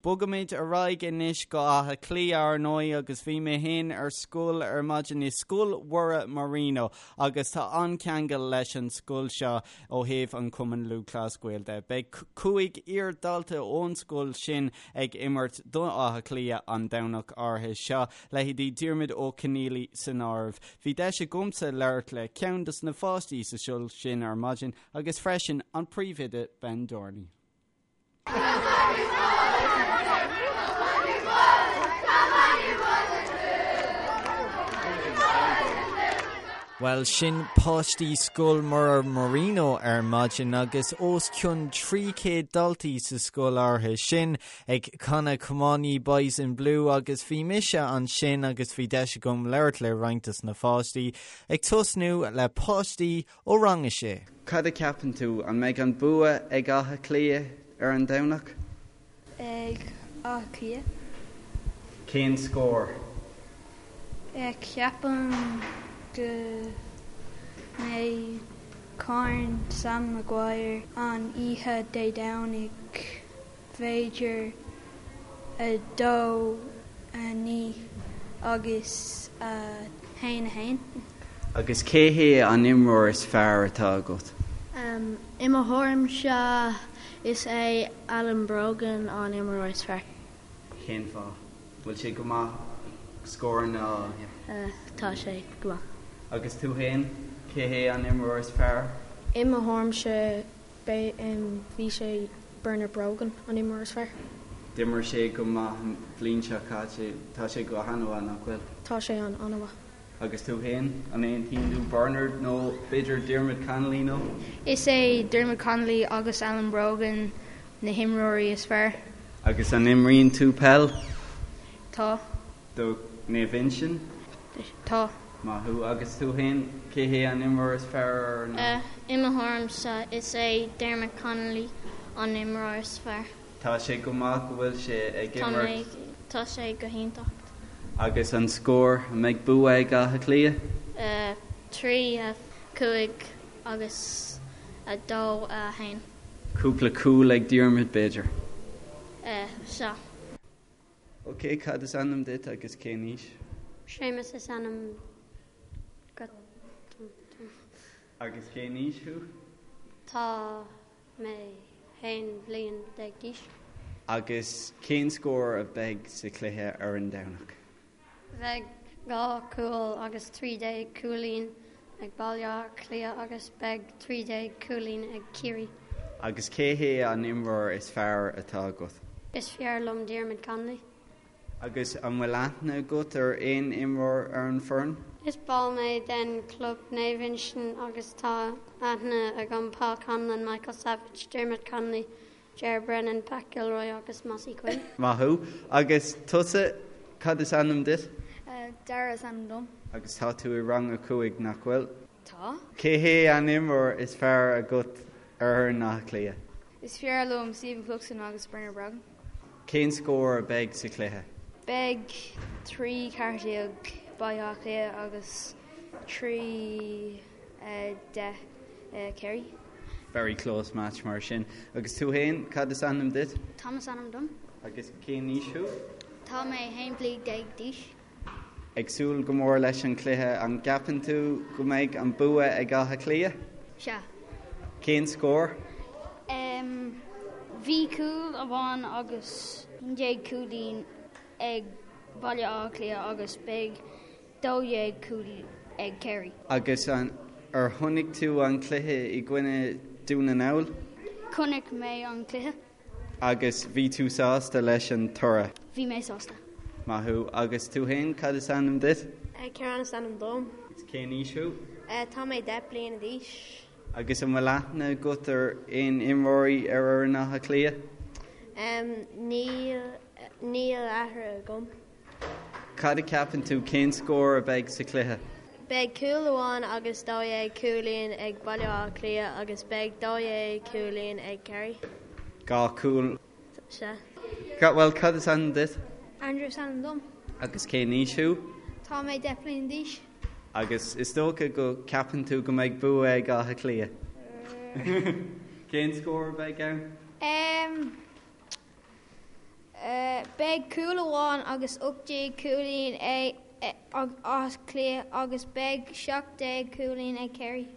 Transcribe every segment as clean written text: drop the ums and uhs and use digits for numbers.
Bogaimid ar aghaidh anois go Áth Cliath ar ndóigh agus bhí mé féin ar scoil ar maidin i Scoil Mhuire Marino agus tá an-cheangal leis an scoil seo ó thaobh an Chumann Lúthchleas Gael de. Beidh 5 iar-dhalta ón scoil sin ag imirt do Áth Cliath an Domhnach áirithe seo, leithéidí Diarmuid Ó Conghaile san áireamh. Bhí deis agamsa labhairt le ceann dos na pháistí sa scoil sin ar maidin agus freisin an príomhoide Ben Dorney. Bhuel, sin páistí Scoil Mhuire Marino ar maidin agus os cionn 300 daltaí sa scoil áirithe sin ag canadh Come On Ye Boys in Blue agus bhí mise ansin agus bhí deis agam labhairt le roinnt dos na pháistí, ag tosnú le páistí Ó rang a sé. Cad a cheapann tú, an mbeidh an bua ag Áth Cliath ar an Domhnach? Ag Áth Cliath. Cén scór? Ceapaim go mbeidh Corn Sam Maguire an oíche Dé Domhnaigh. b'fhéidir 2, 9 agus 1, 1. Agus cé hé an imreoir is fearr atá agat? I mo thuairimse is é Alan Brogan an imreoir is fearr. Cén fáth? Bhfuil sé go maith scóranna a. Tá sé go maith. Agus tú féin, cé hé an imreoir is fearr? I mo thuairimse Bhí sé Bernard Brogan an imreoir is fearr. D'imir sé go maith an bhliain seo caite. Tá sé go han-mhaith, nach bhfuil? Tá sé an an-mhaith. Agus tú féin? An aontaíonn tú Bernard nó b'fhéidir Diarmuid Connolly nó? Is é Diarmuid Connolly agus Alan Brogan na himreoirí is fearr. Agus an imríonn tú peil? Tá. Do Naomh Uinseann? Tá. Maith thú. Agus tú féin, cé hé an imreoir is fearr ar na. I mo thuairimse, is é Diarmuid Connolly an imreoir is fearr. Tá sé go maith go bhfuil sé ag imirt. Tá sé go hiontach. Agus an scór, an mbeidh bua ag Áth Cliath? 3, 5 agus 2, 1. Cúpla cúl ag Diarmuid, b'fhéidir? Sea. Ok, cad is ainm duit agus cén aois? Séamus is ainm dom. Agus cén aois thú? Tá mé 11 bhliain d'aois. Agus cén scór a bheidh sa chluiche ar an Domhnach? Bheidh 2 cúl agus 13 cúilín ag Baile Átha Cliath agus beidh 13 cúilín ag Ciarraí. Agus cé hé an imreoir is fearr atá agat? Is fearr liom Diarmuid Connolly. Agus an bhfuil aithne agat ar aon imreoir ar an foireann? Is ball mé den club Naomh Uinseann agus tá aithne agam Paul Conlon, Michael Savage, Diarmuid Connolly, Ger Brennan, Pat Gilroy agus Mossy Quinn. Maith thú. Agus tusa, cad is ainm duit? Dara is ainm dom. Agus tá tú i rang a 5, nach bhfuil? Tá. Cé hé an imreoir is fearr agat ar fhoireann Átha Cliath? Is fearr liom Stephen Cluxton agus Bernard Brogan. Cén scór a bheidh sa chluiche? Beidh 3 14 Baile Átha Cliath agus 3 10 Kerry. Very close match mar sin. Agus tú féin, cad is ainm duit? Tom is ainm dom. Agus cén aois thú? Tá mé 11 bliain d'aois. Ag súil go mór leis an chluiche. An gceapann tú go mbeidh an bua ag Áth Cliath? Sea. Cén scór? Bhí cúl amháin agus 11 cúilín ag Baile Átha Cliath agus beidh 12 cúl ag Kerry. Agus ar chonaic tú an cluiche i gcoinne Dún na nGall? Chonaic mé an cluiche. Agus bhí tú sásta leis an toradh? Bhí mé sásta. Maith thú. Agus tú féin, cad is ainm duit? Ciarán is ainm dom. Agus cén aois thú? Tá mé 10 bliana d'aois. Agus an bhfuil aithne agat ar aon imreoirí ar fhoireann Átha Cliath? Níl, níl aithne agam. Cad a cheapann tú, cén scór a bheidh sa chluiche? Beidh cúl amháin agus 12 cúilín ag Baile Átha Cliath agus beidh 12 cúilín ag Kerry. 2 cúl. Sea. Bhuel, cad is ainm duit? Andrew is ainm dom. Agus cén aois thú? Tá mé 10 bliana d'aois. Agus is dócha go gceapann tú go mbeidh bua ag Áth Cliath? Cén scór a bheidh ann? Em. Beidh cúl amháin agus 18 cúilín ag Áth Cliath agus beidh 17 cúilín ag Kerry.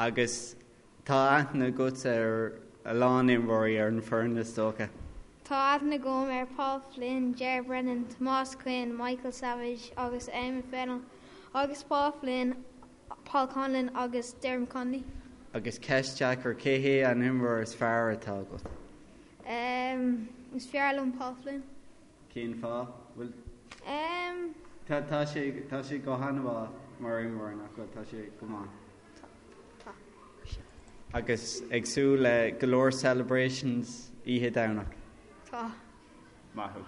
Agus tá aithne agat ar a lán imreoirí ar an bhfoireann, is dócha? Tá aithne agam ar Paul Flynn, Ger Brennan, Tomás Quinn, Michael Savage agus Eamon Fennell agus Paul Flynn, Paul Conlon agus Dermot Connolly. Agus ceist deacair, cé hé an imreoir is fearr atá agat? Em, is fearr liom Paul Flynn. Cén fáth? Bhuel, Em. tá, tá sé, tá sé go han-mhaith mar imreoir, nach bhfuil? Tá sé go maith. Tá, tá. Agus ag súil le go leor celebrations oíche Domhnach? Tá. Maith thú.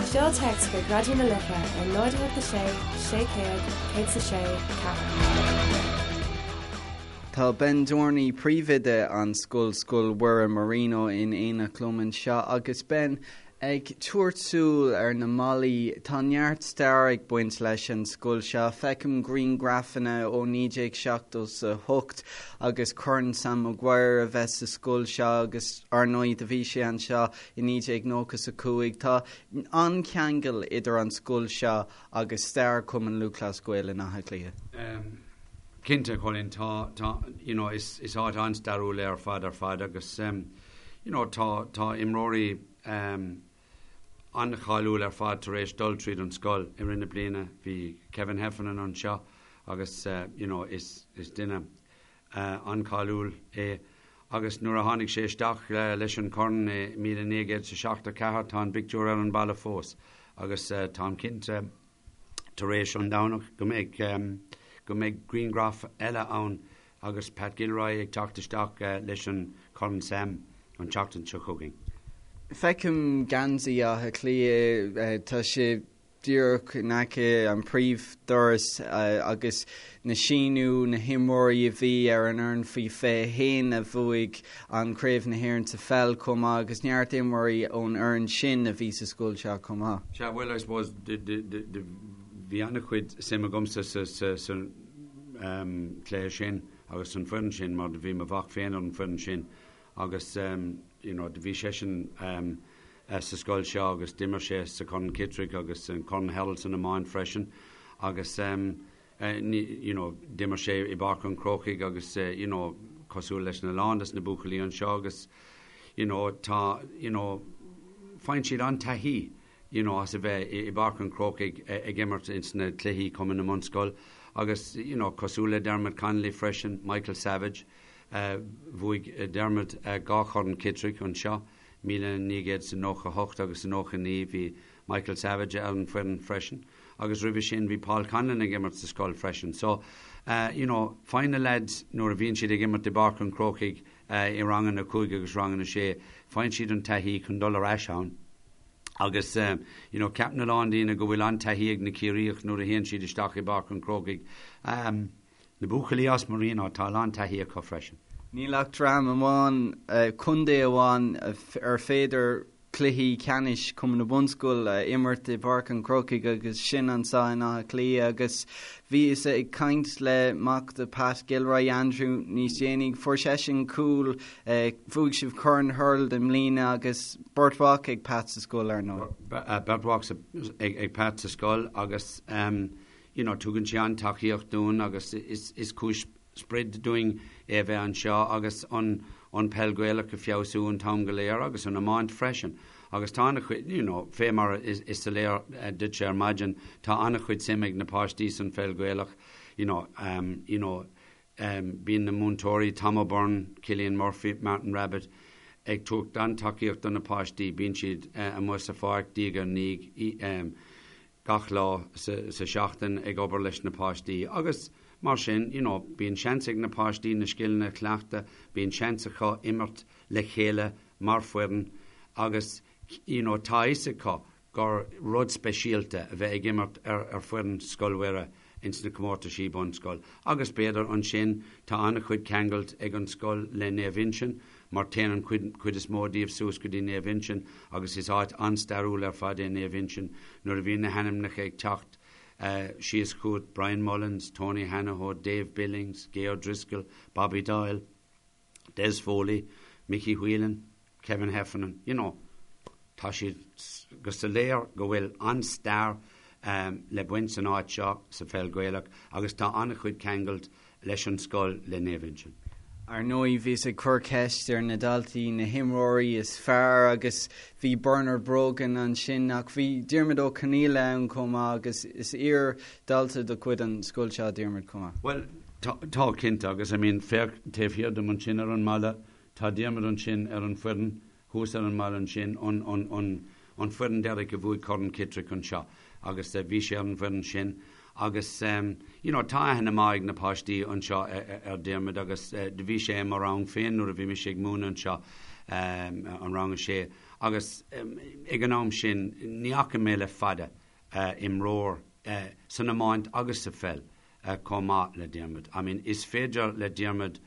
Seol téacs chuig Raidió na Life ar 0 8 6 600 106 4. Tá Ben Dorney, príomhoide an scoil, Scoil Mhuire Marino in éineacht liom anseo agus Ben, Ag tabhairt súil ar na mballaí, tá neart stair ag baint leis an scoil seo. Feicim grianghrafanna ó 1978 agus Corn Sam Maguire a bheith sa scoil seo agus ar ndóigh do bhí sé anseo i 1995. Tá an-cheangal idir an scoil seo agus stair Chumann Lúthchleas Gael in Áth Cliath. Cinnte, Colin, tá, tá, you know, is, is áit an-stairiúil é ar fad ar fad agus, you know, tá, tá imreoirí an-cháiliúil ar fad tar éis dul tríd an scoil i rith na bliana. Bhí Kevin Heffernan anseo agus, you know, is, is duine an-cháiliúil é agus nuair a tháinig sé isteach leis an chorn i 1974 tá an bpictiúr ar an balla fós agus táim cinnte tar éis an Domhnach go mbeidh go mbeidh grianghraf eile ann agus Pat Gilroy ag teacht isteach leis an Chorn Sam an tseachtain seo chugainn. Feicim geansaí Átha Cliath, tá sé díreach in aice an príomhdoras agus na síniú na himreoirí a bhí ar an fhoireann faoi 21 a bhuaigh an Craobh na hÉireann sa pheil chomh maith agus neart imreoirí ón fhoireann sin a bhí sa scoil seo chomh maith. Sea, bhuel, I suppose, bhí an-chuid suim agamsa sa chluiche sin agus san foireann sin mar do bhí mo mhac féin ar an foireann sin agus you know do bhí seisean sa scoil seo agus d'imir sé sa Chorn Kittrick agus an Corn Hurl san iomáint freisin agus you know d'imir sé i bPáirc an Chrócaigh agus you know cosúil leis na lán des na buachaillí anseo agus you know tá you know faigheann siad an-taithí you know as a bheith i bPáirc an Chrócaigh ag imirt ins na cluichí Cumann na mBunscol agus you know cosúil le Dermot Connolly freisin, Michael Savage, bhuaigh Dermot 2 Chorn Kittrick anseo, 1998 agus 99, bhí Michael Savage ar an foireann freisin agus roimhe sin bhí Paul Conlon ag imirt sa scoil freisin so you know faigheann na lads nuair a bhíonn siad ag imirt i bPáirc an Chrócaigh i ranganna 5 agus ranganna 6 faigheann siad an taithí chun dul ar ais ann agus you know ceapann a lán daoine go bhfuil an-taithí ag na Ciarraíoch nuair a théann siad isteach i bPáirc an Chrócaigh. Na buachaillí as Marino, tá a lán taithí acu freisin. Níl ach dream amháin, contae amháin, ar féidir cluichí ceannais Chumann na Bunscol a imirt i bPáirc an Chrócaigh agus sin anseo in Áth Cliath agus bhíos ag caint le mac de Pat Gilroy, Andrew, níos déanaí. Fuair seisean cúl, bhuaigh sibh Corn Hurl i mbliana agus beirt mhac ag Pat sa scoil, ar ndóigh. Beirt mhac ag Pat sa scoil agus you know tugann sé an-tacaíocht dúinn agus is is cúis spraoi dúinn é a bheith anseo agus an an peil Gaelach a feabhsú an t-am go léir agus an iomáint freisin agus tá an-chuid you know fé mar is is soiléir duitse ar maidin tá an-chuid suim ag na páistí san pheil Gaelach you know um you know um bíonn na múinteoirí Tom O'Byrne, Cillian Murphy, Martin Rabbitt ag tabhairt an-tacaíocht do na páistí bíonn siad amuigh sa pháirc diaidh ar ndiaidh um gach lá sa seachtain ag obair leis na páistí agus mar sin you know bíonn seans ag na páistí na scileanna a chleachtadh, bíonn seans acu imirt le chéile mar foireann agus you know tá a fhios acu gur rud speisialta a bheith ag imirt ar ar foireann Scoil Mhuire ins na comórtaisí bunscoil agus b'fhéidir ansin tá an-chuid ceangailt ag an scoil le Naomh Uinseann mar téann an chuid chuid is mó díobh suas go dtí Naomh Uinseann agus is áit an-stairiúil ar fad é Naomh Uinseann nuair a bhíonn na hainmneacha ag teacht síos chugat, Brian Mullins, Tony Hanahoe, Dave Billings, Gay O'Driscoll, Bobby Doyle, Des Foley. Mickey Whelan, Kevin Heffernan, you know, tá siad go soiléir go bhfuil an-stair le baint san áit seo sa pheil Ghaelach agus tá an-chuid ceangailt leis an scoil le Naomh Uinseann. Ar ndóigh, bhíos ag cur ceist ar na daltaí na himreoirí is fearr agus bhí Bernard Brogan ansin ach bhí Diarmuid Ó Conghaile ann chomh maith agus is iar-dhalta de chuid an scoil seo Diarmuid chomh maith. Bhuel, tá, cinnte, agus I mean, féach taobh thiar dom ansin ar an mballa, Tá Diarmuid ansin ar an bhfoireann, thuas ar an mballa ansin, an, an, an, an foireann deiridh a bhuaigh Corn Kittrick anseo agus bhí sé ar an bhfoireann sin agus you know tá aithne maith ag na páistí anseo ar Diarmuid agus do bhí sé i mo rang féin nuair a bhí mise ag múineadh anseo, an rang a sé agus ag an am sin ní fhaca mé le fada imreoir san iomáint agus sa pheil chomh maith le Diarmuid. I mean is féidir le Diarmuid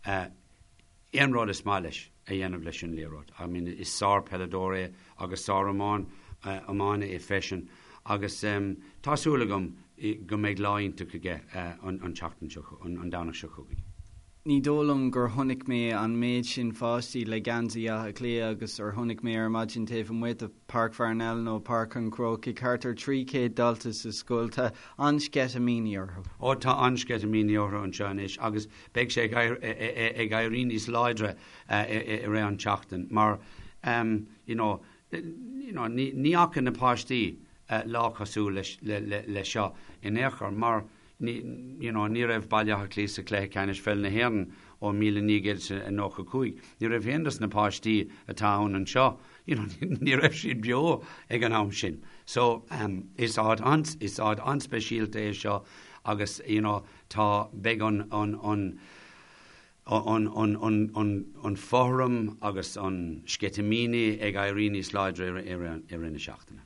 aon rud is maith leis a dhéanamh leis an liathróid. I mean is sár-peileadóir é agus sár-iománaí é freisin agus tá súil agam go mbeidh lá iontach aige an tseachtain seo, an Domhnach seo chugainn. Ní dóigh liom gur chonaic mé an méid sin pháistí le geansaí Átha Cliath agus ar chonaic mé ar maidin taobh amuigh de Páirc Pharnell nó Páirc an Chrócaigh, thart ar 300 dalta sa scoil. Tá an-sceitimíní orthu. Ó tá an-sceitimíní orthu anseo anois agus beidh sé ag éirí níos láidre i rith an tseachtain mar you know you know ní fhaca na páistí lá cosúil le seo in aon chor mar you know ní raibh Baile Átha Cliath sa chluiche ceannais pheil na hÉireann ó 1995. Ní raibh aon dos na páistí atá ann anseo you know ní raibh siad beo ag an am sin. So is áit an is áit an-speisialta é seo agus you know tá beidh an an an an an an an an fothram agus an sceitimíní ag éirí níos láidre i rith i rith na seachtaine.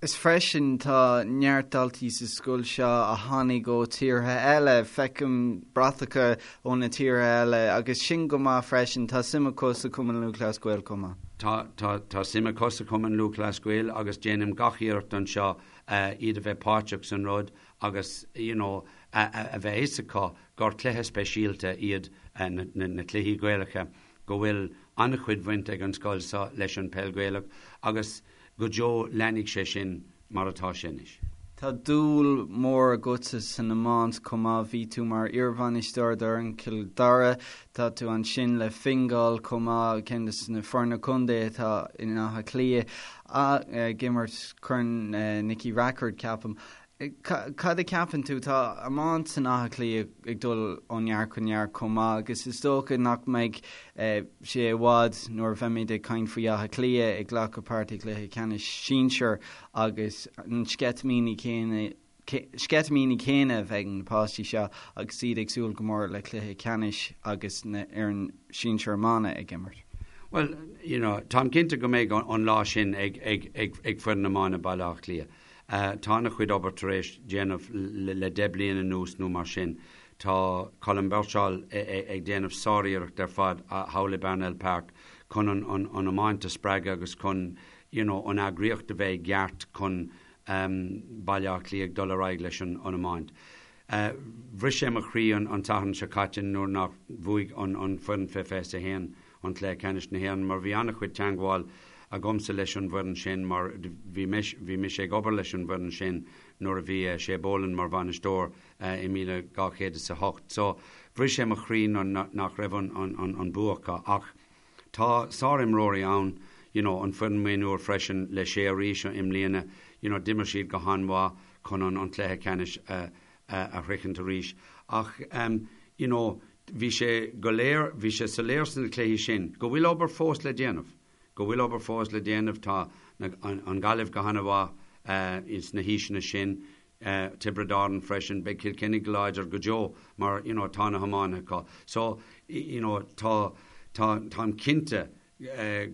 Is freisin tá neart daltaí sa scoil seo a tháinig ó tíortha eile, feicim bratacha ó na tíortha eile agus sin go maith freisin, tá suim acu sa Chumann Lúthchleas Gael chomh maith. Tá, tá, tá suim acu sa Chumann Lúthchleas Gael agus déanaim gach iarracht anseo iad a bheith páirteach san rud agus you know a bheith fhios acu gur cluiche speisialta iad na cluichí Gaelacha, go bhfuil an-chuid bhaint ag an scoil seo leis an peil Gaelach agus go deo leanfaidh sé sin mar atá sé anois. Tá dúil mhór agatsa san iomáint chomh maith, bhí tú mar iarbhainisteoir d'fhoireann Chill Dara, tá tú ansin le Fingal chomh maith, ceann de na foirne contae atá in Áth Cliath, ag imirt Corn Nicky Rackard ceapaim. Cad a cheapann tú? Tá iomáint in Áth Cliath ag dul ó neart go neart chomh maith agus is dócha nach mbeidh sé i bhfad nuair a bheimid ag caint faoi Áth Cliath ag glacadh páirt i gcluiche ceannais sinsir agus an sceitimíní céanna sceitimíní céanna a bheidh ag na páistí seo agus iad ag súil go mór le cluiche ceannais agus na fhoireann sinsir iomána ag imirt. Well, you know, táim cinnte go mbeidh an lá sin ag ag ag ag foireann iomána Baile Átha Cliath. Tá an-chuid obair tar éis déanamh le 10 bliain anuas nó mar sin. Tá Colm Birchall ag déanamh sáriarracht ar fad thall i bParnell Park chun an iomáint a spreagadh agus chun you know an eagraíocht a bheith i gceart chun Baile Átha Cliath ag dul ar aghaidh leis an iomáint. Bhris sé mo chroí an tSatharn seo caite nuair nach bhuaigh an foireann fé 21 an Cluiche Ceannais na hÉireann mar bhí an-chuid teangmháil agamsa leis an bhfoireann sin mar bhí bhí mise ag obair leis an bhfoireann sin nuair a bhí Shay Boland mar bhainisteoir i 2008. So bhris sé mo chroí nach raibh an an an bua acu ach tá sárimreoirí ann you know an foireann mionúir freisin le Shay arís i mbliana you know d'imir siad go han-mhaith chun an an cluiche ceannais a a shroichint arís ach you know Bhí sé go léir, bhí sé soiléir sna cluichí sin go bhfuil obair fós le déanamh, go bhfuil obair fós le déanamh. Tá an Ghaillimh go han-mhaith sna haoiseanna sin, Tiobraid Árann freisin, beidh Cill Chainnigh go láidir go deo mar you know tá na hiománaithe acu. So you know tá, tá, táim cinnte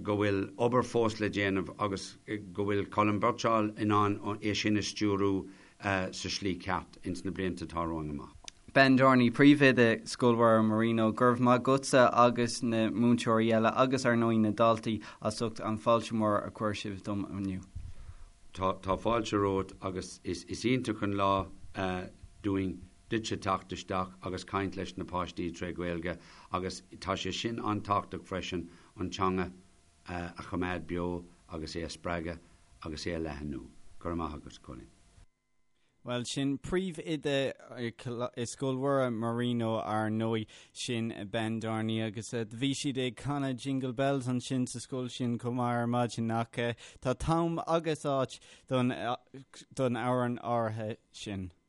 go bhfuil obair fós le déanamh agus go bhfuil Colm Birchall in ann é sin a stiúrú sa slí ceart ins na blianta atá romhainn amach. Ben Dorney, Príomhoide Scoil Mhuire Marino, go raibh maith agatsa agus na múinteoirí eile agus ar ndóigh na daltaí as ucht an fáilte mór a chuir sibh dom inniu. Tá, tá fáilte romhat agus is, is iontach an lá dúinn. duitse teacht isteach agus caint leis na páistí tré Ghaeilge agus tá sé sin an-tábhachtach freisin an teanga a choimeád beo agus é a spreagadh agus é a leathnú. Go raibh maith agat, Cóilín. Bhuel, sin príomhoide i Scoil Mhuire Marino ar ndóigh, sin Ben Dorney agus bhí siad ag canadh Jingle Bells ansin sa scoil sin chomh maith ar maidin ach tá t-am agus áit don amhrán áirithe sin.